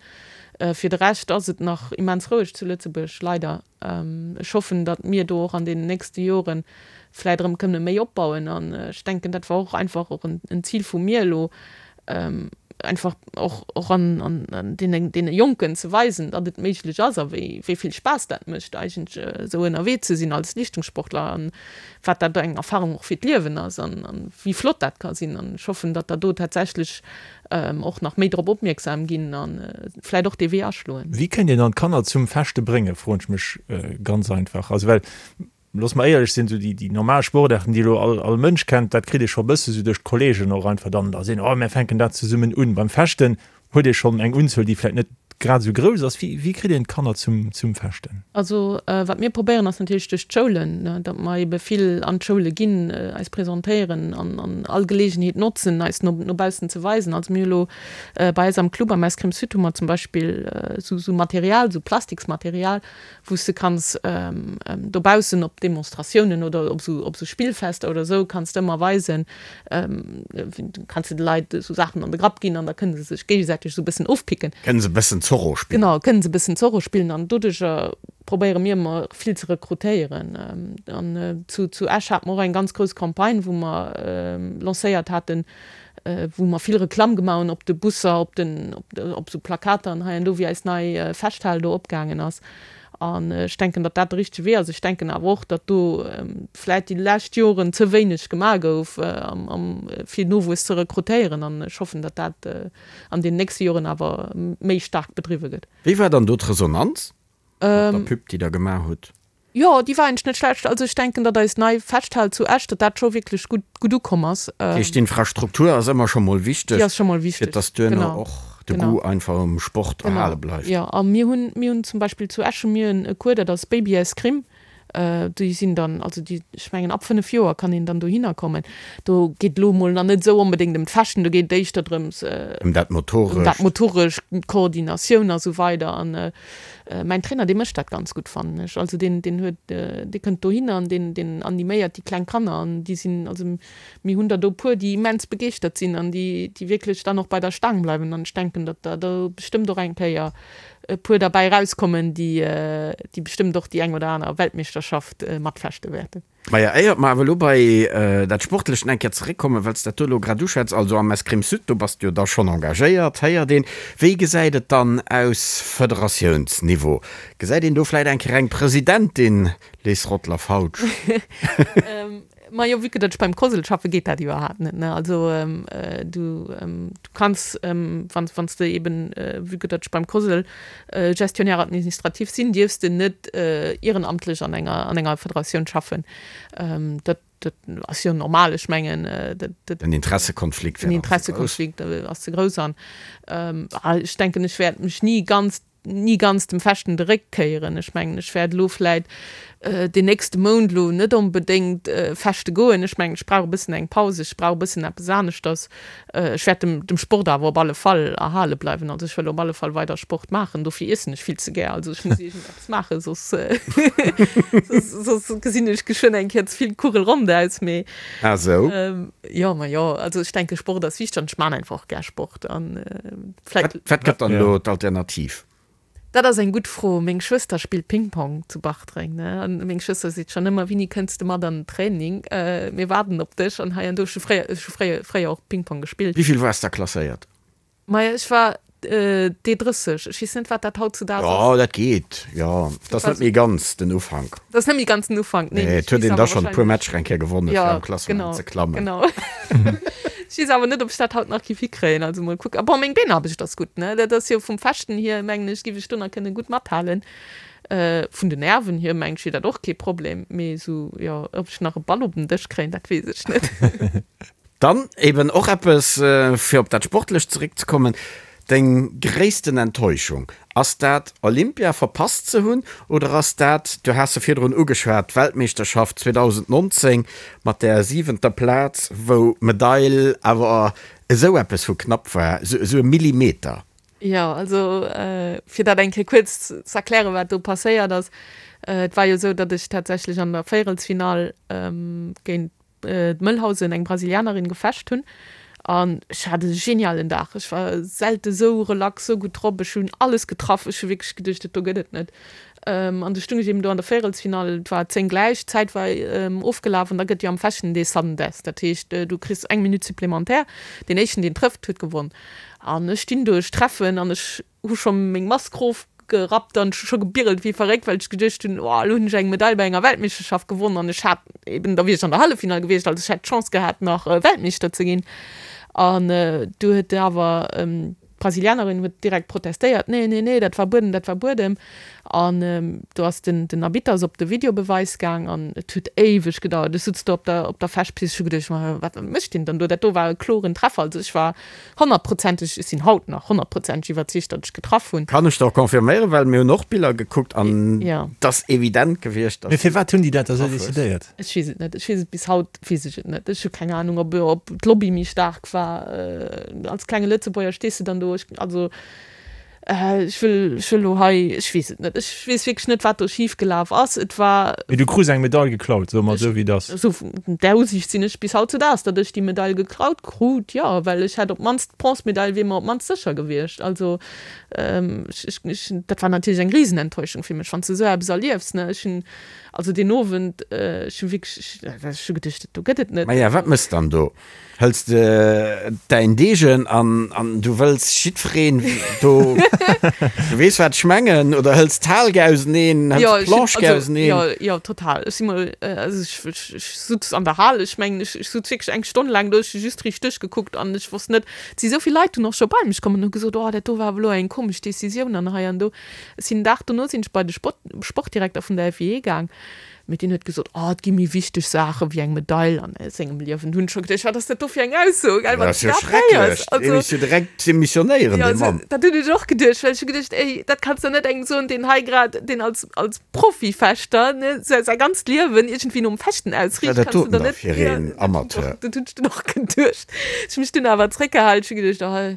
Fir de Rescht ass et nach immens roueg zu Lëtzebuerg, leider. Ech hoffen, datt mir do och an deenen nächste Jore vläit erëm kënne méi opbauen. An ech denken, dat war och einfach och en Zil vu mir elo, einfach och och an an deene deene Jonken ze weisen, datt et méiglech ass a wéi wéi vill Spaass dat mécht eigentlech esou ënnerwee ze sinn als Leeschtungssportler an wat dat eng Erfahrung och fir d'Liewen ass an an wéi flott dat ka sinn. An ech hoffen, datt der do tatsächlech och nach méi drop opmierksam ginn a vläit och dee Wee aschloen. Wéi kéint een dann d'Kanner zum Fechte bréngen, froen ech mech ganz einfach. Also well Looss mer éierlech sinn, esou déi, déi normal Sportaarten, déi elo all, all Mënsch kennt, dat kritt ee scho e bësse sou duerch d'Kolleegen och einfach dann, da sinn, oh, mär fänken dat zesummen un. Beim Fechten huet ee schonn eng Unzuel, déi vläicht net. grad esou grouss ass. Wéi, wéi kritt een d'Kanner zum, zum Fechten? Also wat mir probéieren ass natierlech duerch d'Schoulen, ne, datt mer ebe vill an d'Schoule ginn, eis presentéieren an, an all Geleegenheet notzen, eis no, no baussen ze weisen. Also mir hu lo bei eis am Club am Escrime Sud hu mer zum Beispill esou, esou Material, esou Plastiksmaterial, wou s de kanns dobaussen op Demonstratiounen oder op esou op esou Spillfester oder esou kanns de ëmmer weisen, kanns de de Leit esou Saachen an de Grapp ginn an da kënne se sech géigesäiteg esou e bëssen ofpicken. Kënne se e bëssen Zorro spillen. Genau, kënne se e bëssen Zorro spillen an doduercher probéiere mir ëmmer vill ze rekrutéieren. An zu zu Esch hate mer och eng ganz grouss Campagne, wou mer lancéiert haten, wou mer vill Reklamm gemaach hunn op de Busser, op den, op esou Plakater an hei an do, wéi eis nei Festhal do opgaangen ass. An ech denken, datt dat de richtege Wee ass. Ech denken awer och, datt do vläicht déi lescht Joren ze wéineg gemaach gouf, fir Nowuess ze rekrutéieren. An ech hoffen, datt dat an den nächste Joren awer méi staark bedriwwe gëtt. Wéi war dann do d'Resonanz mat der Pub, déi Der gemaach hutt? Jo, déi war eigentlech net schlecht. Also ech denken, datt eis nei Festhal zu Esch, datt dat scho wierklech gutt, gutt ukomm ass. Dat heescht, d'Infrastruktur ass ëmmer scho mol wichteg, Déi ass scho mol wichteg, fir datt duerno och de genau. Goût einfach um Sport erhale bleift. Jo, a mir hunn, mir hunn zum Beispill zu Esch hu mir e Cours, dat ass Baby Escrime. Déi sinn dann, also déi, ech mengen ab 5 Joer kann een dann dohinner kommen. Do geet elo mol nach net esou onbedéngt ëm d'Fechten, do geet et éischter drëms, Ëm dat Motorescht. Ëm dat Motorescht, d'Koordinatioun a sou weider. An Mäin Trainer, dee mécht dat ganz gutt, fannen ech. Also deen, deen huet, dee kënnt dohinner an deen, deen animéiert déi kleng Kanner an déi sinn, also mir hunn der do e puer, déi immens begeeschtert sinn an déi, déi wierklech dann och bei der Staang bleiwen. An ech denken, datt der do bestëmmt och eng Kéier e puer derbäi erauskommen, déi, déi bestëmmt och déi eng oder aner Weltmeeschterschaft matfechte wäerten. Maja, éiert mer awer elo bei dat Sportlecht eng Kéier zeréckkommen, well s dat do elo grad uschwätz, also am Escrime Sud, do bass de jo da schonn engagéiert, héiert een. Wéi gesäit et dann aus Federatiounsniveau? Gesäit een do vläit eng Kéier eng Presidentin, Les Rottler-Fautsch? Majo, vue que datt ech beim COSL schaffe geet dat iwwerhaapt net, ne. Also du du kanns, wann wann s de eben, vue que datt ech beim COSL Gestionnaire administratif sinn, dierfs de net ierenamtlech an enger an enger Federatioun schaffen. Dat dat ass jo normal, ech mengen dat dat. Den Interessekonflikt wär dann ze grouss. Den Interessekonflikt ass ze grouss an ech denken, ech wäert mech ni ganz ni ganz dem Fechten de Réck kéieren. Ech mengen, ech wäert elo vläit deen nächste Mount elo net onbedéngt fechte goen. Ech mengen, ech brauch e bëssen eng Paus, ech brauch e bëssen eppes aneschters. Ech wäert dem, dem Sport awer op alle Fall erhale bleiwen. Also ech wëll op alle Fall weider Sport maachen. Dofir iessen ech vill ze gär. Also ech muss iergendeppes maachen, soss, soss, soss gesinn ech geschwënn eng Kéier ze vill kugelrond aus. Mee. Ah sou. Jo, ma jo, also ech denke Sport ass wichteg an ech maan einfach och gär Sport an vläit. Wat gëtt dann elo d'Alternativ? Dat ass eng gutt Fro. Meng Schwëster spillt Ping-Pong zu Bartreng, ne? An meng Schwëster seet schonn ëmmer, Winnie, kënns de mat an den Training? Mir waarden op dech. An hei an do. Ech hu fréier, ech hu fréier, fréier och Ping-Pong gespillt. Wéi vill waars da klasséiert? Maja, ech war D30. Ech weess net, wat dat hautzudaags ass. Jo, dat geet, jo. Dat ass net méi ganz den Ufank. Dat ass net méi ganz den Ufank, nee. Nee, et huet een da schonn e puer Matcher eng Kéier gewonnen, fir am Klassement ze klammen. Genau, genau. Ech weess awer net, ob ech dat haut nach géif hikréien. Also mol kucken. Bon, meng Beenaarbecht ass gutt, ne? Dat ass jo vum Fechten hier, mengen ech, géif ech do nach kënne gutt mathalen. Vun den Nerven hier, mengen ech, wier dat och kee Problem. Mee esou, jo, ob ech nach e Ball op den Dësch kréien, dat weess ech net. Dann eben och eppes, fir op dat Sportlecht zeréckzekommen, Deng gréissten Enttäuschung, ass dat Olympia verpasst ze hunn oder ass dat, du has se virdrun ugeschwat, d'Weltmeeschterschaft 2019 mat där siwenter Plaz, wou d'Medail awer esou eppes vu knapp war, esou e Millimeter? Jo, also fir dat eng Kéier kuerz z'erklären, wat do passéiert ass, Et war jo esou, datt ech tatsächlech an der Véierelsfinall géint d'Mëllhausen, eng Brasilianerin, gefecht hunn an ech hat e genialen Dag. Ech war selte sou relax, sou gutt drop. Ech hunn alles getraff. Ech hu wierklech geduecht, dat do gëtt et net. An du stung ech eben do an der Véierelsfinall, et war 10 gläich, d'Zäit war ofgelaf an da gëtt jo am Fechten dee Sudden Death, dat heescht, du kriss eng Minutt supplémentaire, deen éischten deen trëfft, huet gewonn. An ech stinn do, ech treffen an ech hu scho meng Mask rofgerappt an ech hu scho gebirelt wéi verréckt, well ech geduecht hunn, oh elo hunn ech eng Medail bei enger Weltmeeschterschaft gewonn an ech hat eben, da wier ech an der Halleffinall gewiescht, also ech hätt d'Chance gehat nach Weltmeeschter ze ginn. An du huet awer. D'Brasilianerin huet direkt protestéiert, Nee, nee, nee, dat war Buedem, dat war Buedem. An do ass den, den Arbitter ass op de Videobeweis gaang an et huet éiweg gedauert. Ech sutz do op der, op der Fechtpist, ech hu geduecht, ma wat mécht deen dann do? Dat do war e kloren Treffer. Also ech war honnertprozenteg, ech sinn haut nach honnertprozenteg iwwerzeegt, datt ech getraff hunn. Kann ech der och confirméieren, well mir hunn och Biller gekuckt an et ass evident gewiescht, datt. Mee firwat hunn déi dat da sou decidéiert? Ech weess et net. Ech weess et bis haut weess ech et net. Ech hu keng Anung, ob, ob d'Lobby méi staark war. Als klenge Lëtzebuerger stees de dann do. Ech, also, ech wëll, ech wëll elo hei, ech weess et net. Ech weess wierklech net, wat do schif gelaf ass. Et war. Mee du krus eng Medail geklaut, soe mer esou, wéi et ass. Esou, där Usiicht sinn ech bis hautzudaags, datt ech déi Medail geklaut krut, jo, well ech hätt op d'mannst, d'Bronzemedail wier mer op d'mannst sécher gewiescht. Also, ech, ech, ech, dat war natierlech eng Risenenttäuschung fir mech, wann s de esou eppes erliefs, ne. Ech hunn, Also deen Owend, ech hu wierklech, ech hu geduecht, dat do gëtt et net. Maja, wat mëss dann do? Hëls de däin Degen an an du wëlls jiddwereen do, du weess wat ech mengen, oder hëls d'Hal auseneen, hëls d'Planche auseneen? Jo, jo, total. Ech si mol, also ech, ech, ech sutz an der Hal, ech mengen, ech, ech sutz wierklech eng Stonn laang do, ech hu just riicht duerchgekuckt an ech wosst net, et si sou vill Leit dunn och scho bei mech komm an hu gesot, oh dat do war awer elo eng komesch Decisioun an hei an do. Ech sinn den Dag dono sinn ech bei de Sport, Sportdirekter vun der FIE gaang, mee deen huet gesot, oh et gi méi wichteg Saache wéi eng Medail an sengem Liewen. Hunn ech scho geduecht, wat ass dat do fir eng Ausso, gell, wann s du dat héiers. Dat ass jo schrecklech, dee misst jo direkt demissionéieren, dee Mann. Dat hunn ech och geduecht, well ech hu geduecht, ey, dat kanns de net engem soen, deen hei grad, deen als, als Profifechter, ne, säi, säi ganzt Liewen iergendwéi nom Fechten ausriicht, Wat dat doten da fir een Amateur. Dat hunn ech dunn och geduecht. Ech hu mech dunn awer zréckgehalen, ech hu geduecht, oh,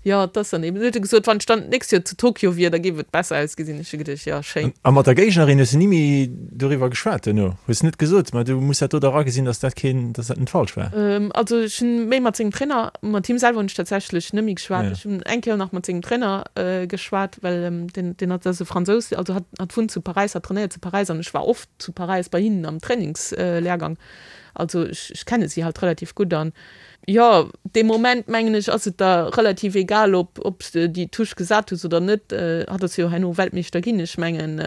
Jo, et ass dann eben. Huet e gesot, wann ech dann d'nächst Joer zu Tokio wier, da géif et besser ausgesinn. Ech hu geduecht, jo, schéin. A mat der Géignerin hues de ni méi doriwwer geschwat duerno? Hues net gesot, ma du muss dat do dach agesinn, datt dat keen, datt dat net falsch war? Also ech hunn méi mat sengem Trainer, mat him selwer hunn ech tatsächlech net méi geschwat. Ech hunn eng Kéier nach mat sengem Trainer geschwat, well deen, deen hat, ass e Fransous, also hat, hat wunnt zu Paräis, hat trainéiert zu Paräis an ech war oft zu Paräis bei hinnen am Trainingslehrgang. Also ech, ech kenne si halt relativ gutt an Jo, dee Moment mengen ech ass et der relativ egal ob ob s de déi Touche gesat hues oder net. Hatt ass jo herno Weltmeeschter ginn. Ech mengen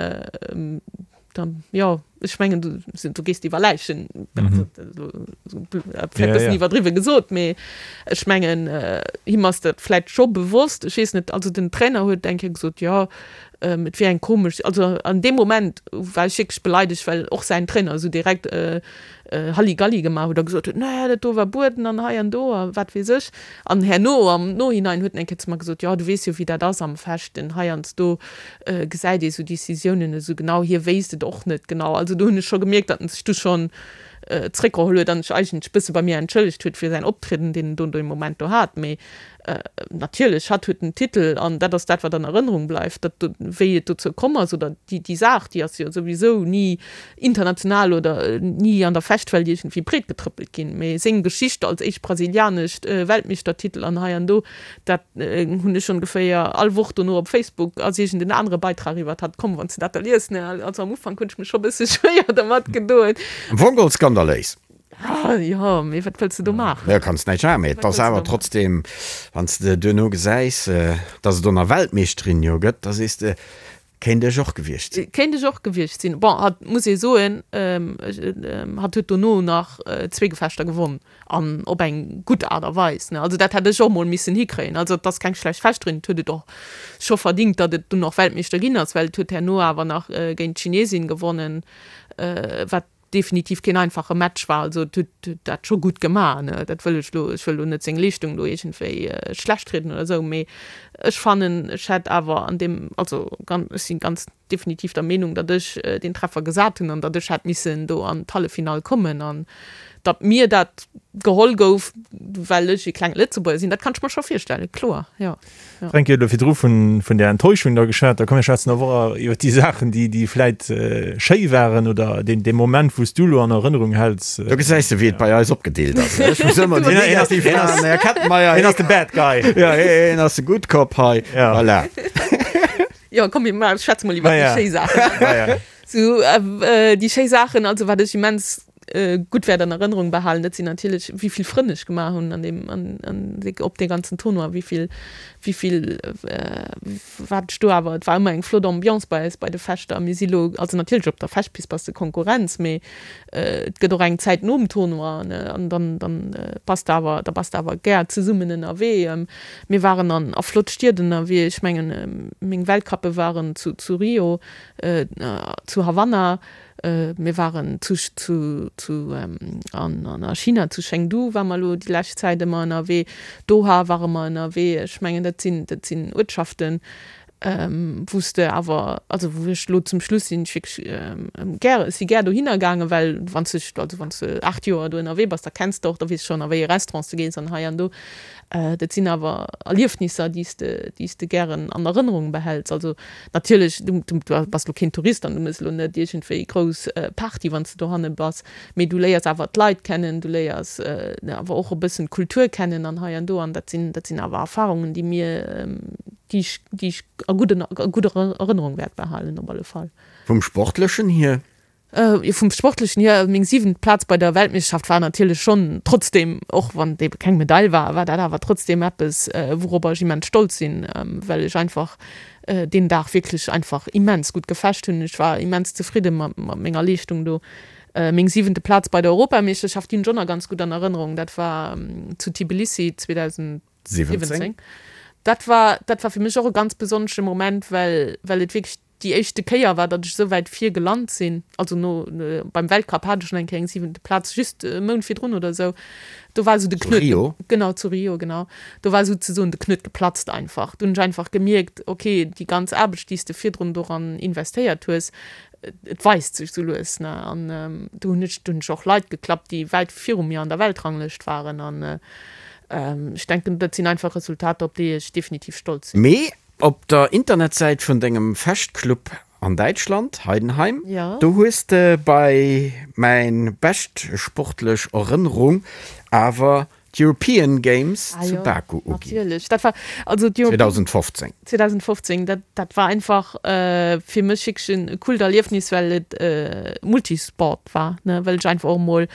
da jo ech mengen du du gees iwwer Läichen, vläit e bëssen iwwerdriwwe gesot, mee ech mengen him ass dat vläit scho bewosst. Ech weess net, also den Trainer huet eng Kéier gesot, jo et wier eng komesch, also an deem Moment war ech wierklech beleidegt, well och säin Trainer esou direkt Halligalli gemaach huet a gesot huet, Nee, dat do war Bueden an hei an do a wat weess ech. An herno am Nohinein huet en eng Kéier zu mer gesot, Jo, du weess jo, wéi dat ass am Fechten, heiansdo gesäit ee sou Decisiounen net esou genau, hie wéisst et och net genau. Also do hunn ech scho gemierkt, datt en sech du schonn zréckgeholl huet an sech eigentlech e bësse bei mir entschëllegt huet fir säin Optrieden, deen en do dee Moment do hat. Mee Natierlech, hatt huet den Titel an dat ass dat, wat an Erënnerung bleift. Dat do, wéi et dozou komm ass oder déi, déi Saach, déi ass jo souwisou ni international oder ni an der Fechtwelt iergendwéi breetgetrëppelt ginn. Mee seng Geschicht als éischt brasilianescht Weltmeeschtertitel an hei an do, dat hunn ech ongeféier all Woch dono op Facebook ass iergend en anere Beitrag iwwert hatt komm, wann s de dat da liest, ne. Also am Ufank hunn ech mech scho bësse schwéier dermat gedoen. Am Fong geholl skandaléis. Ah, jo, mee wat wëlls de do maachen? Jo, kanns näischt maachen, mee et ass awer trotzdem, wann s de duerno gesäis, dass et och nach Weltmeeschterin jo gëtt, da sees de, kéint ech och gewiescht sinn. Kéint ech och gewiescht sinn. Bon, hatt, muss ee soen, hatt huet dono nach zwee Gefechter gewonn an op eng gutt Aart a Weis, ne. Also dat hätt ech och mol missen hikréien. Also et ass keng schlecht Fechterin, et huet et och scho verdingt, datt et dunn och Weltmeeschter ginn ass, well et huet herno awer nach géint d'Chinesin gewonnen, wat definitiv keen einfache Match war, also et huet dat scho gutt gemaach, ne, dat wëll ech lo, ech wëll lo net seng Leeschtung do iergendwéi schlecht rieden oder esou, mee ech fannen, ech hätt awer an deem, also ganz, ech si ganz definitiv der Meenung, datt ech deen Treffer gesat hunn an datt ech hätt missen do an d'Halleffinall kommen an datt mir dat geholl gouf, well ech e klenge Lëtzebuerger sinn, dat kann ech mer scho virstellen, kloer, jo. Fränki huet elo virdru vun vun där Enttäuschung da geschwat. Da komm mir schwätzen awer och iwwer déi Saachen, déi déi vläit schéi waren oder deen dee Moment, wou s du elo an Erënnerung häls. Do gesäis de, wéi et bei eis opgedeelt ass. Ech muss ëmmer déi negativ maachen. Den Här Kettenmeyer, hien ass de Bad Guy. Jo, hien ass de Good Cop hei. Voilà. Jo, komm mir schwätze mol iwwer déi schéi Saachen. Sou, déi schéi Saachen, also wat ech immens. gutt wäert an Erënnerung behalen, dat sinn natierlech, wéi vill Frënn ech gemaach hunn an deem, an, an op dee ganzen Tournoi, wéi vill, wéi vill, wat ech do awer, et war ëmmer eng flott Ambiance bei eis bei de Fechter. Mir si lo, also natierlech op der Fechtpist bass de Konkurrenz, mee et gëtt och eng Zäit nom Tournoi, ne, an dann, dann bass de awer, da bass de awer gär zesummen ënnerwee. Mir waren an a flott Stied ënnerwee, ech mengen, meng Weltcuppe waren zu, zu Rio, zu Havanna, Mir waren zu, zu, zu, an, an a China, zu Chengdu ware mer elo déi lescht Zäit ëmmer ënnerwee, Doha ware mer ënnerwee. Ech mengen, dat sinn, dat sinn Uertschaften, wou s de awer, also wou ech elo zum Schluss sinn ech wierklech gär, ech si gär dohinner gaangen, well wann s de, also wann s de 8 Joer do ënnerwee bass, da kenns de och, da weess de schonn a wéi ee Restaurant s de gees an hei an do. Dat sinn awer Erliefnisser, déi s de, déi s de gären an Erënnerung behäls. Also Natierlech, du bass elo keen Tourist an du méchs elo net iergendwéi grouss Party, wann s de dohanne bass, mee du léiers awer d'Leit kennen, du léiers awer och e bëssen d'Kultur kennen an hei an do an dat sinn, dat sinn awer Erfarungen, déi mir, déi ech, déi ech a gudden, a gudder Erënnerung wäert behalen op alle Fall. Vum Sportlechen hier? Jo, vum Sportlechen hier, meng siwent Plaz bei der Weltmeeschterschaft war natierlech schonn trotzdeem, och wann et ebe keng Medail war, war dat awer trotzdeem eppes, wouropper ech immens stolz sinn, well ech einfach deen Dag wierklech einfach immens gutt gefecht hunn. Ech war immens zefridde mat menger Leeschtung do. Meng siwente Plaz bei der Europameeschterschaft, déi hunn ech och nach ganz gutt an Erënnerung, dat war zu Tbilissi 2017. Dat war, dat war fir mech och e ganz besonnesche Moment, well, well et wierklech déi éischte Kéier war, datt ech esou wäit vir gelant sinn, also no beim Weltcup hat ech schonn eng Kéier eng siwente Plaz, just e Mount virdrun oder esou, do war esou de Knuet, Rio? genau, zu Rio, genau, do war souzesoen de Knuet geplatzt einfach. Do hunn ech einfach gemierkt, okay, déi ganz Aarbecht, déi s de virdrun doran investéiert hues, et weist sech esou lues, ne, an do hunn ech, do hunn ech och Leit geklappt, déi wäit viru mir an der Weltranglëscht waren an ech denken, dat sinn einfach Resultater, op déi ech definitiv stolz sinn. Mee Op der Internetsäit vun dengem Fechtclub an Däitschland, Heidenheim, do hues de bei mäin bescht sportlech Erënnerung awer d'European Games zu Baku uginn. 2015. 2015, dat war einfach fir mech wierklech en coolt Erliefnis, well et Multisport war, well ech einfach och emol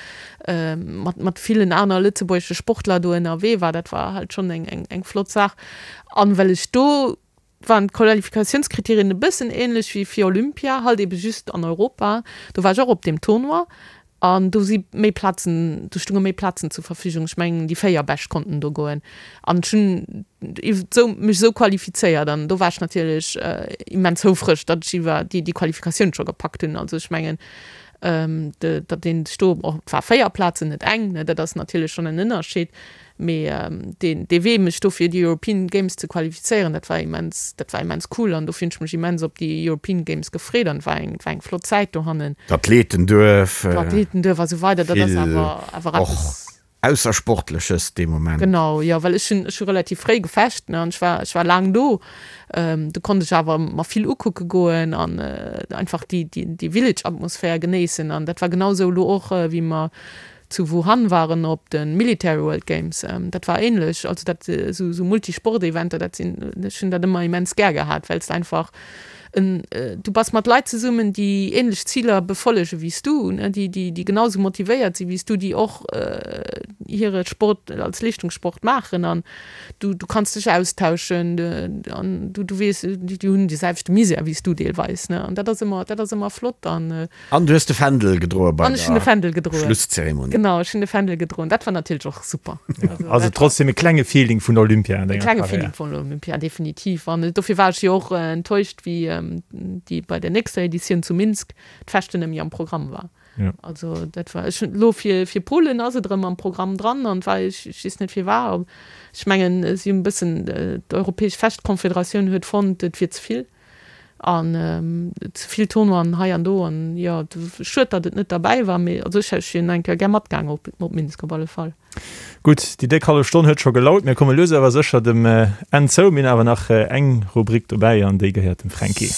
mat villen aner lëtzebuergesche Sportler do ënnerwee war. Dat war halt schonn eng flott Saach. An well ech do waren d'Qualifikatiounskriterien e bëssen ähnlech wéi fir Olympia, halt ebe just an Europa. Do war ech och op deem Tournoi an do si méi Plazen, do stounge méi Plazen zur Verfügung. Ech mengen déi 4 Bescht konnten do goen an ech hunn esou mech esou qualifizéiert an do war ech natierlech immens houfreg, datt ech iwwer déi déi Qualifikatioun scho gepackt hunn. Also ech mengen datt een sech do, och et war 4 Plazen, net eng, ne, dat ass natierlech schonn en Ënnerscheed. Mee deen dee Wee mech do fir déi European Games ze qualifizéieren, dat war immens, dat war immens cool an dofir hunn ech mech immens op déi European Games gefreet an et war eng, et war eng flott Zäit dohannen. D'Athletenduerf. D'Athletenduerf a sou weider, dat ass Vill awer awer och eppes. Aussersportleches dee Moment. Genau, jo, well ech hunn, ech hu relativ fréi gefecht, ne, an ech war, ech war laang do. Do konnt ech awer mer vill ukucke goen an einfach déi, déi, déi Village-Atmosphär genéissen an dat war genau sou elo och, wéi mer zu Wuhan waren op de Military World Games, dat war ähnlech, also dat esou Multisport-Eventer, dat sinn, ech hunn dat ëmmer immens gär gehat, well s de einfach en, du bass mat Leit zesummen, déi ähnlech Ziler befollege wéi s du, ne, déi, déi, déi genau esou motivéiert si wéi s du, déi och hire Sport als Leeschtungssport maachen an du, du kanns dech austauschen an du, du weess, déi hunn dee selwechte Misär wéi s du deelweis, ne, an dat ass ëmmer, dat ass ëmmer flott an. An du hues de Fändel gedroe bei An ech hunn de der Fändel gedroen. Schlusszeremonie. Genau, ech hunn de Fändel gedroen. Dat war natierlech och super. Also, Also trotzdem e klenge Feeling vun Olympia an E denger klenge Karriär. Feeling vun Olympia, definitiv. An dofir war ech jo och enttäuscht, wéi déi bei der nächster Editioun zu Minsk d'Fechten net méi am Programm war. Ja. Also dat war, ech hunn elo fir, fir Polen ass et erëm am Programm dran an war, ech, ech weess net firwat. Ech mengen, si hunn e bëssen, d'Europäesch Fechtkonfederatioun huet fonnt, et wier ze vill. An ze vill Tournoien hei an do an jo, schued datt et net derbäi war, mee also ech ech wier eng Kéier gär matgaang op op Minsk op alle Fall. Gutt, déi déck hallef Stonn huet scho gelaut. Mir komme lues awer sécher dem Enn zou. Mir hunn awer nach eng Rubrik dobäi an déi gehéiert dem Fränki.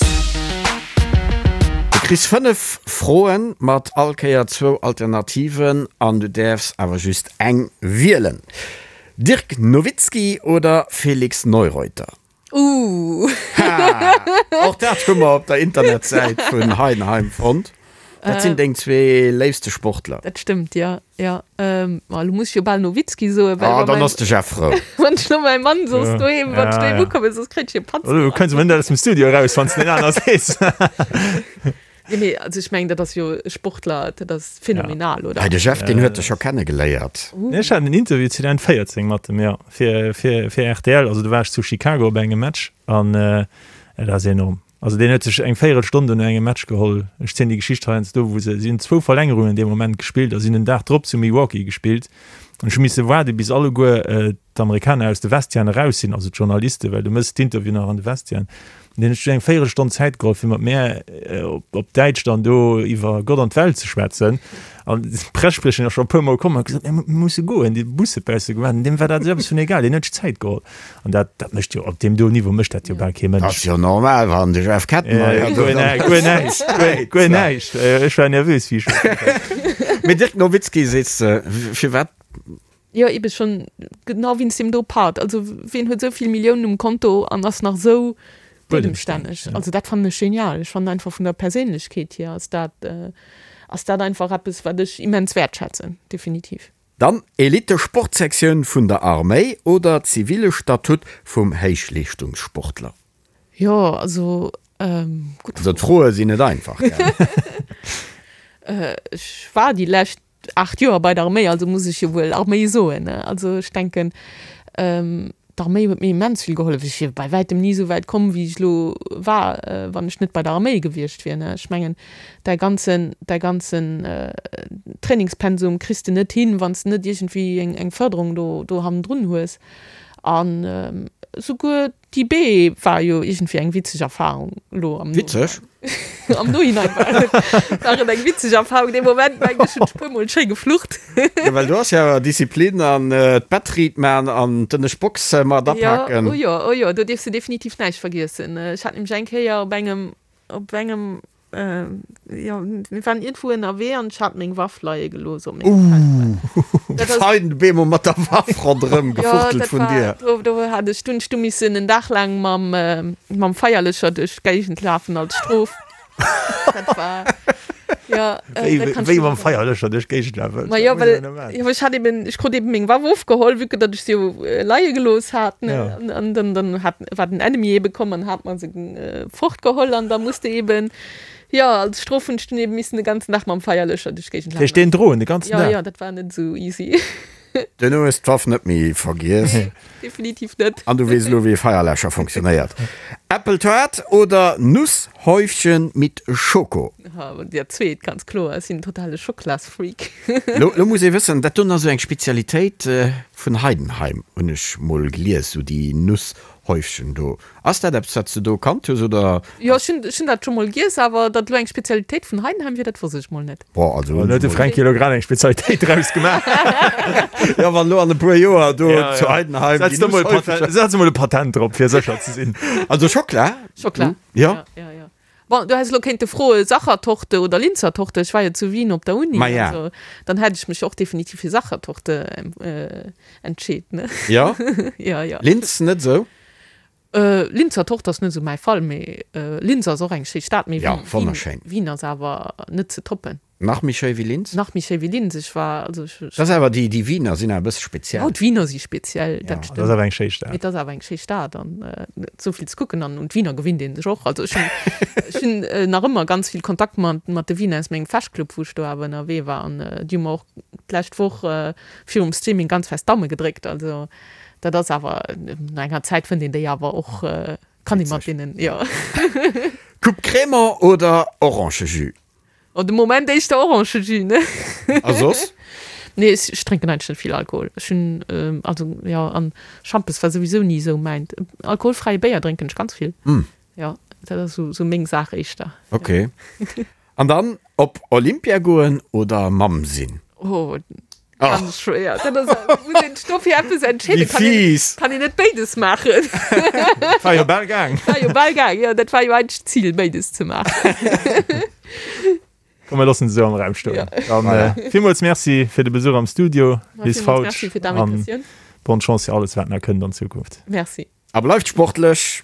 Du kriss 5 Froen mat all Kéier zwou Alternativen an du däerfs awer just eng wielen. Dirk Nowitzki oder Felix Neureuter? Ooh. Ha! Och dat hu mer op der Internetsäit vun Heidenheim fonnt. Dat sinn deng zwee léifste Sportler. Dat stëmmt, jo, jo. Ma elo muss ech jo bal Nowitzki soen, well Ah, dann ass de Jeff frou. Wann ech lo mäi Mann soss doheem, wann ech doheem ukommen, soss kréit ech e Patz. Du kënns emol net aus dem Studio eraus, wann s de den aner sees. Jo, mee also ech mengen, dat ass jo e Sportler, dat ass phänomenal, oder? Hei, de Jeff, deen huet dech scho kennegeléiert. Ech hat en Interview 2014 mat em, jo, fir, fir, fir rtl. Also do war ech zu Chicago op engem Match an dat ass enorm. Also deen huet sech eng Véierelstonn do no engem Match geholl. Ech zielen déi Geschicht heiansdo, wou se, si hunn zwou Verlängerungen dee Moment gespillt a sinn den Dag drop zu Milwaukee gespillt. An ech hu misse waarde bis alleguer d'Amerikaner aus de Vestiairen eraus sinn, also d'Journalisten, well du méchs d'Interview nach an de Vestiairen. An deen huet sech eng Véierelstonn Zäit geholl, fir mat mär op Däitsch dann do iwwer Gott an d'Welt ze schwätzen. An d'Pressespriecherin ass scho e puermol komm an huet gesot, Mir musse goen, déi Busse bausse gewaart. An deem war dat esou eppes vun egal, deen huet sech Zäit geholl. An dat, dat mécht jo, op deem do Niveau mécht dat jo bal kee Mënsch. Ass jo normal, wann de Jeff Kettenmeyer do dann. Guer näischt, guer näischt. Ech war nervös, wéi ech. Mee Dirk Nowitzki sees de, firwat? Jo, ebe schonn genau wéinst deem do Part. Also wien huet esou vill Milliounen um Konto an ass nach esou buedemstänneg? Also dat fannen ech genial. Ech fannen einfach vun der Perséinlechkeet hier ass dat, ass dat einfach eppes, wat ech immens wäertschätzen, definitiv. Dann Elite-Sportsektioun vun der Arméi oder zivile Statut vum Héichleeschtungssportler? Jo, also gutt Also d'Froe sinn net einfach, gell? Ech war déi lescht 8 Joer bei der Arméi, also muss ech jo wuel Arméi soen, ne? Also ech denken, D'Arméi huet mir immens vill gehollef. Ech wier bei wäitem ni esou wäit komm, wéi ech elo war, wann ech net bei der Arméi gewiescht wier. Ech mengen, däi ganzen, däi ganzen Trainingspensum kriss de net hin, wann s de net iergendwéi eng Fërderung do, do hannendrun hues. An esouguer D'IB war jo iergendwéi eng witzeg Erfahrung elo am Witzeg? Am Nohinein war et, war et eng witzeg Erfahrung. Dee Moment mengen ech hunn ech puer mol schéi geflucht. Jo, well do ass jo awer Disziplin an d'Bettriit man an d'ënnescht Box mat apaken. Jo, oh jo, oh jo, do dierfs de definitiv näischt vergiessen. Ech hat nämlech eng Kéier op engem, op engem Jo, mir waren iergendwou ënnerwee an ech hat meng Waff leie gelooss op mengem Feldbett. Dat ass. Fein bemol mat der Waff ronderëm gefuchtelt vun dir. Jo, dat war, do hat ech, do hunn ech du missen en Dag laang mam, mam Feierlëscher duerch d'Géigend lafen als Strof. Dat war, jo, dat kann ech. Wéi mam Feierlëscher duerch d'Géigend lafen? Ma jo, well, jo, ech hat eben, ech krut eben meng Waff ofgeholl, vue que datt ech se jo leie gelooss hat, ne, an dann, dann hat, war den Enemy ebe komm an hat mer se Fortgeholl an da muss de eben, jo, als Strof hunn ech dunn eben missen de ganzen Dag mam Feierlöscher duerch d'Géigend lafen. Duerch deen droen de ganzen Dag? Jo, jo, dat war net esou easy. Duerno hues d'Waff net méi vergiess. Definitiv net. An du weess elo wéi e Feierläscher funktionéiert. Äppeltoart oder Nusshäufchen mit Schoko? Dat zweet, ganz kloer. Ech sinn en totale Schocklasfreak. Lo, lo muss ee wëssen, dat doen ass esou eng Spezialitéit vun Heidenheim, hunn ech mol gelies, esou déi Nusshäufchen do. Ass dat eppes wat s de do kannt hues oder? Jo ech hunn ech hunn dat scho mol giess, awer datt elo eng Spezialitéit vun Heidenheim wier, dat wosst ech mol net. Boah also hunn huet de Fränki elo grad eng Spezialitéit draus gemaach. Jo wann elo an e puer Joer do zu Heidenheim déi Nuss häufeger. Setz emol e Patent drop fir sécher ze sinn. Also Schockla? Schockla. Jo. Jo jo. Bon, du häss elo kéinte froe Sachertorte oder Linzertorte, ech war jo zu Wien op der Uni, Maja. also dann hätt ech mech och definitiv fir Sachertorte entscheet, ne? Jo? Jo, jo. Linz net esou? Linzer Torte ass net esou mäi Fall, mee Linz ass och eng schéi Stad, mee Ja, wonnerschéin. Wien ass awer net ze toppen. Nach méi schéi wéi Linz? Nach méi schéi wéi Linz, ech war, also ech. Dat ass awer, déi, déi Wiener sinn awer e bësse speziell. Jo, d'Wiener si speziell, dat stëmmt. Dat ass awer eng schéi Stad. Mee et ass awer eng schéi Stad an esou vill ze kucken an un d'Wiener gewinnt ee sech och. Also ech hunn, ech hunn nach ëmmer ganz vill Kontakt mat, mat de Wiener aus mengem Fechtclub, wou ech do awer ënnerwee war an déi hu mer och d'lescht Woch virum Streaming ganz fest d'Daume gedréckt. Also dat ass awer, no enger Zäit fënnt een déi awer och, kann ee mat deenen, jo. Coupe Crémant oder Orangejus? Oh, de Moment éischter Orangejus, ne? A soss? Nee, ech, ech drénken eigentlech net vill Alkohol. Ech hunn, also jo, an Schampes war souwisou ni esou mäint. Alkoholfräie Béier drénken ech ganz vill. Jo, dat ass esou, esou meng Saach éischter. Ok. An dann op Olympia goen oder Mamm sinn? Oh, ganz schwéier. Dat ass, muss een sech dofir eppes entscheeden. Wéi fies! Kann een net béides maachen. War jo bal gaang. War jo bal gaang, jo. Dat war jo eigentlech d'Zil, béides ze maachen. Komm, mir loossen se esou am Raum stoen. Ja. Dann äh, villmools Merci fir de Besuch am Studio, Liz Fautsch. Merci fir d'Invitatioun. Bonne Chance fir alles, wat nach kënnt an Zukunft. Merci. A bleift sportlech!